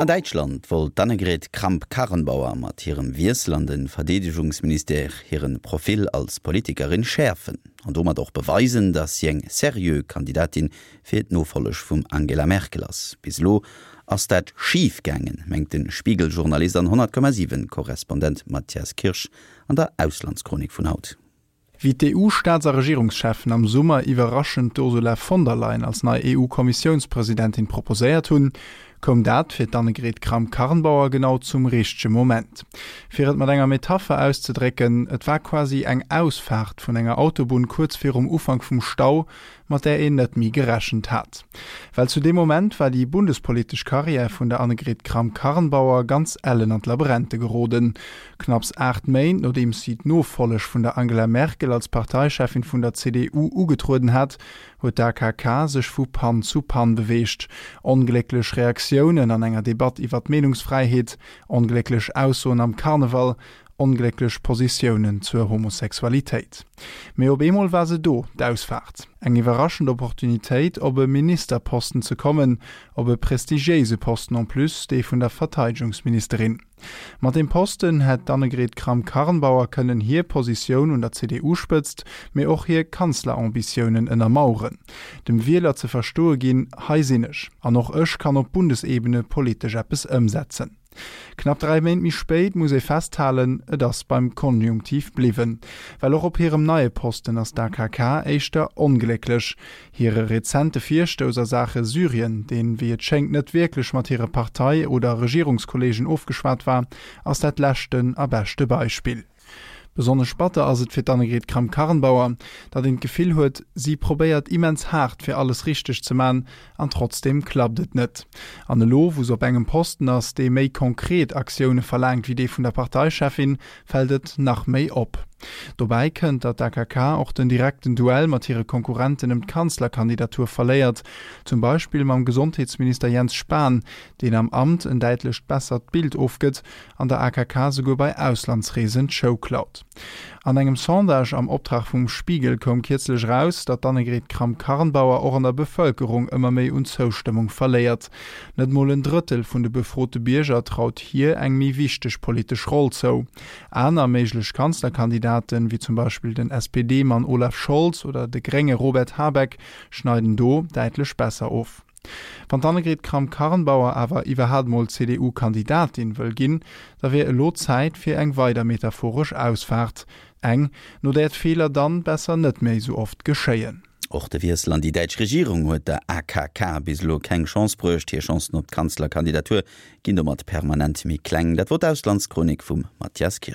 An Däitschland wollt d'Annegret Kramp-Karrenbauer mat hirem Wiessel an de Verdeedegungsministère hire Profil als Politikerin schäerfen an domat och beweisen, datt si eng seriö Kandidatin fir d'Nofolleg vum Angela Merkel ass. Bis elo ass dat schif gaangen, mengt de Spiegel-Journalist an 100,7 Korrespondent Matthias Kirsch an der Auslandschronik vun haut. Wéi d'EU-Staats a Regierungscheffen am Summer iwwerraschend d'Ursula von der Leyen als nei EU-Kommissiounspresidentin proposéiert hunn, koum dat fir d'Annegret Kramp-Karrenbauer genau zum richtege Moment. Fir et mat enger Metapher auszedrécken, et war quasi eng Ausfaart vun enger Autobunn kuerz virum Ufank vum Stau, mat där een net méi gerechent hat. Well zu deem Moment war déi bundespolitesch Karriär vun der Annegret Kramp-Karrenbauer ganz ellen an d'Labrente geroden. Knapps 8 Méint nodeems si d'Nofolleg vun der Angela Merkel als Parteicheffin vun der CDU ugetrueden hat, huet d'AKK sech vu Pann zu Pann beweegt. Onglécklech Reaktiounen an enger Debatt iwwer d'Meenungsfräiheet, onglécklech Aussoen am Karneval, onglécklech Positiounen zur Homosexualitéit. Mee op eemol war se do, d'Ausfaart. Eng iwwerraschend Opportunitéit, op e Ministerposten ze kommen, op e prestigiéise Posten en plus, dee vun der Verteidegungsministerin. Mat deem Posten hätt d'Annegret Kramp-Karrenbauer kënnen hir Positioun un der CDU-Spëtzt, mee och hir Kanzlerambitiounen ënnermaueren. Dem Wieler ze verstoe ginn, hei sinn ech, an och ech kann op Bundesebene politesch eppes ëmsetzen. Knapp 3 Méint méi spéit muss ee festhalen, et ass beim Konjunktiv bliwwen. Well och op hirem neie Posten ass d'AKK éischter onglécklech. Hire rezente Virstouss a Saache Syrien, deen, wéi et schéngt, net wierklech mat hire Partei oder Regierungskollegen ofgeschwat war, ass dat leschten a beschte Beispill. Besonnesch batter ass et fir d'Annegret Kramp-Karrenbauer, datt een d'Gefill huet, si probéiert immens haart fir alles richteg ze man an trotzdeem klappt et net. An elo, wou se op engem Posten ass, dee méi konkret Aktioune verlaangt wéi dee vun der Parteicheffin, fält et nach méi op. Dobäi kënnt, datt d'AKK och den direkten Duell mat hire Konkurrenten ëm d'Kanzlerkandidatur verléiert, zum Beispill mam Gesondheetsminister Jens Spahn, deen am Amt en däitlecht bessert Bild ofgëtt an der AKK souguer bei Auslandsreesen d'Show klaut. An engem Sondage am Optrag vum Spiegel koum kierzlech eraus, datt d'Annegret Kramp-Karrenbauer och an der Bevëlkerung ëmmer méi un Zoustëmmung verléiert. Net mol en Drëttel vun de befrote Bierger traut hir eng méi wichteg politesch Roll zou. Aner méiglech Kanzlerkandidaten, wéi zum Beispill den SPD-Mann Olaf Scholz oder de Grénge Robert Habeck, schneiden do däitlech besser of. Wann d'Annegret Kramp-Karrenbauer awer iwwerhaapt mol CDU-Kandidatin wëll ginn, da wier elo Zäit fir eng weider metaphoresch Ausfaart. Eng, no där d'Feeler dann besser net méi sou oft geschéien. Och de Wiessel an déi däitsch Regierung huet der AKK bis elo keng Chance bruecht. Hir Chancen op d'Kanzlerkandidatur ginn domat permanent méi kleng. Dat wor d'Auslandschronik vum Mathias Kirsch.